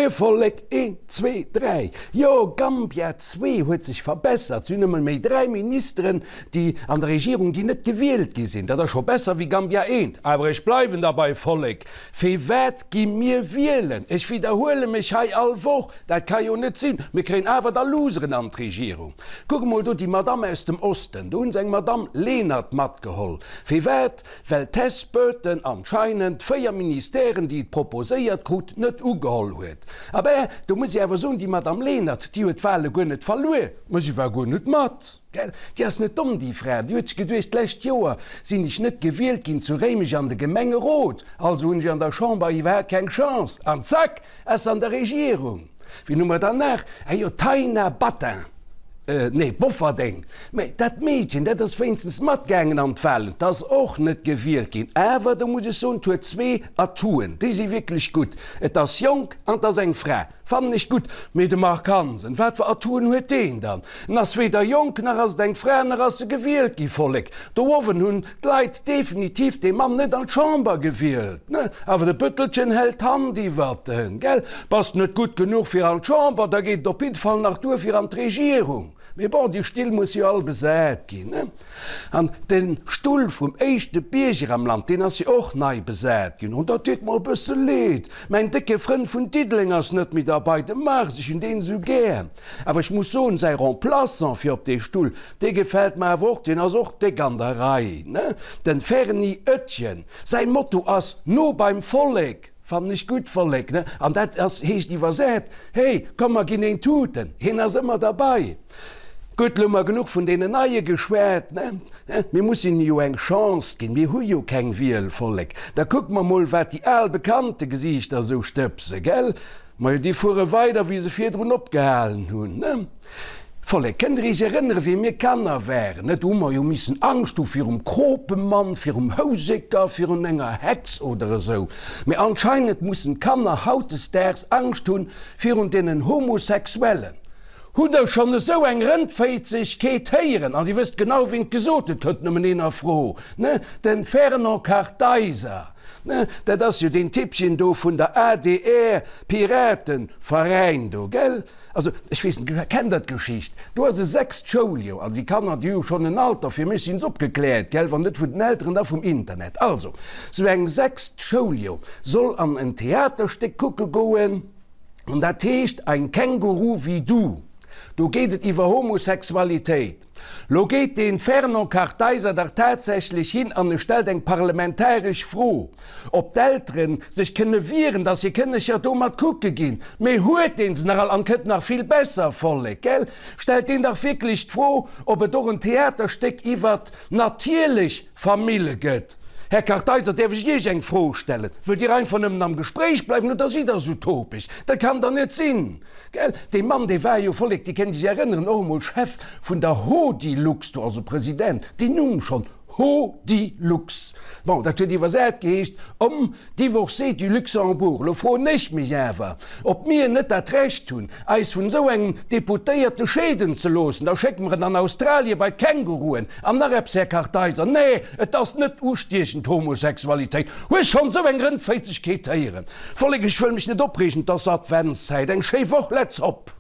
Mir Vollek, een, zwee, dräi. Jo, Gambia 2 huet sech verbessert. Si hunn emol méi dräi Ministeren, déi an der Regierung, déi net gewielt gi sinn. Dat ass scho besser wéi Gambia 1. Awer ech bleiwen derbei, Vollek, Firwat gi mir wielen? Ech widderhuele mech hei all Woch, dat ka jo net sinn. Mir kréien awer da Loseren an d'Regierung. Kuck emol do déi Madamm aus dem Osten. Do hu se eng Madamm Lenert matgeholl. Firwat? Well d'Tess Burton anscheinend 4 Ministèren, déi et proposéiert krut, net ugeholl huet. Abä, do muss ech awer soen, déi Madamm Lenert, déi huet d'Wahle guer net verluer, mä si war guer net mat. Gell, déi ass net domm, déi Fra. Déi huet sech geduecht, d'lescht Joer sinn ech net gewielt ginn zu Réimech an de Gemengerot, also hunn ech an der Chamber iwwerhaapt keng Chance. An zack, ass se an der Regierung. Wien hu mer dann nach? Ah jo, d'Taina Battin, nee, Bofferdeng. Mä dat Meedchen, dat ass wéinstens matgaangen an d'Wahlen, 't ass och net gewielt ginn. Awer do muss ech soen, 't huet zwee Atouen, déi si wierklech gutt, Et ass jonk an 't ass eng Fra. Fannen ech gutt. Mee de Marc Hansen, wat fir Atouen huet deen dann? En ass weder jonk, nach ass et eng Fra, nach ass e gewielt gi. Vollek, do owen hunn d'Leit definitiv dee Mann net an d'Chamber gewielt, ne? Awer de Bëttelchen hält d'Hand iwwert en, gell? Bass net gutt genuch fir an d'Chamber, da geet et op jidde Fall nach duer fir an d'Regierung. Mee bon, déi Still musse jo all besat ginn, ne? An de Stull vum éischte Bierger am Land, deen ass jo och nei besat ginn. An dat deet mer e bësse leed. Mäin décke Frënd vun Diddeleng ass net méi derbei, de Mars, ech hunn deen esou gär. Awer ech muss soen, säi Remplaçant fir op dee Stull, dee gefält mer awer och, deen ass och déck an der Rei, ne? Den Ferni Oetjen. Säi Motto ass, No beim Vollek! Fannen ech gutt, Vollek, ne? An dat ass, heescht iwwersät, Hey, komm mer ginn een tuten! Hien ass ëmmer derbei. Gutt, lo hu mer genuch vun deenen Neie geschwat, ne? Mir mussen hinne jo eng Chance ginn, mir hu jo keng Wiel, Vollek. Da kucke mer mol, wat déi al bekannte Gesiichter esou stëbse, gell? Majo, déi fuere weider, wéi se virdrun opgehalen hunn, ne? Vollek, kënnt der iech erënnere wéi mir Kanner waren, ne? Do hu mer jo missen Angscht hu virum Kropemann, virum Houseker, virun enger Hex oder esou. Mee anscheinend mussen d'Kanner hautdesdaags Angscht hunn virun deenen Homosexuellen. Hutt der schonn esou eng Rëndféizegkeet héieren? An dir wësst genau, wien et gesot huet, kënnt nëmmen een a Fro, ne? Den Fernand Kartheiser, ne? Dat ass jo deen Typpchen do vun der adr Piratenveräin do, gell? Also, ech weess net, kennt der d'Geschicht? Do ass e sechst Schouljoer, also déi Kanner, déi hu jo schonn en Alter, fir mech sinn se opgekläert, gell, wann net vun den Elteren, da vum Internet. Also, sou eng sechst Schouljoer soll an en Theaterstéck kucke goen, an dat heescht Ein Känguru wie du. Do geet et iwwer Homosexualitéit. Lo geet dee Fernand Kartheiser dach tatsächlech hin an e stellt eng parlamentaresch Fro, ob d'Eltere sech kënne wieren, datt hir Kënnecher do mat kucke ginn. Mee huet deen se nach all? An kënnt nach vill besser, Vollek, gell? Stellt deen dach wierklech d'Fro, ob et och en Theaterstéck iwwert natierlech Famille gëtt. Här Kartheiser, däerf ech Iech eng Fro stellen? Wëllt Dir einfach nëmmen am Gespréich bleiwen oder sidd Der esou topeg? Dat kann der net sinn! Gell, dee Mann, dee war jo, Vollek, Dir kënnt Iech erënneren, och emol Chef vun der Hodilux do, also President, deen Numm schonn, Hodilux. Bon, dat huet iwwersat geheescht, Homme divorcé du Luxembourg. Elo froen ech mech awer, ob mir net dat Recht hunn, eis vun esou engem Deputéierte scheeden ze loossen. Da schécke mer en an Australie bei d'Känguruen. An nach eppes, Här Kartheiser, nee, et ass net ustiechend, Homosexualitéit. Hues schonn esou eng Rëndféizegkeet héieren? Vollek, ech wëll mech net opreegen, et ass Adventszäit, eng schéi Woch, let's hop!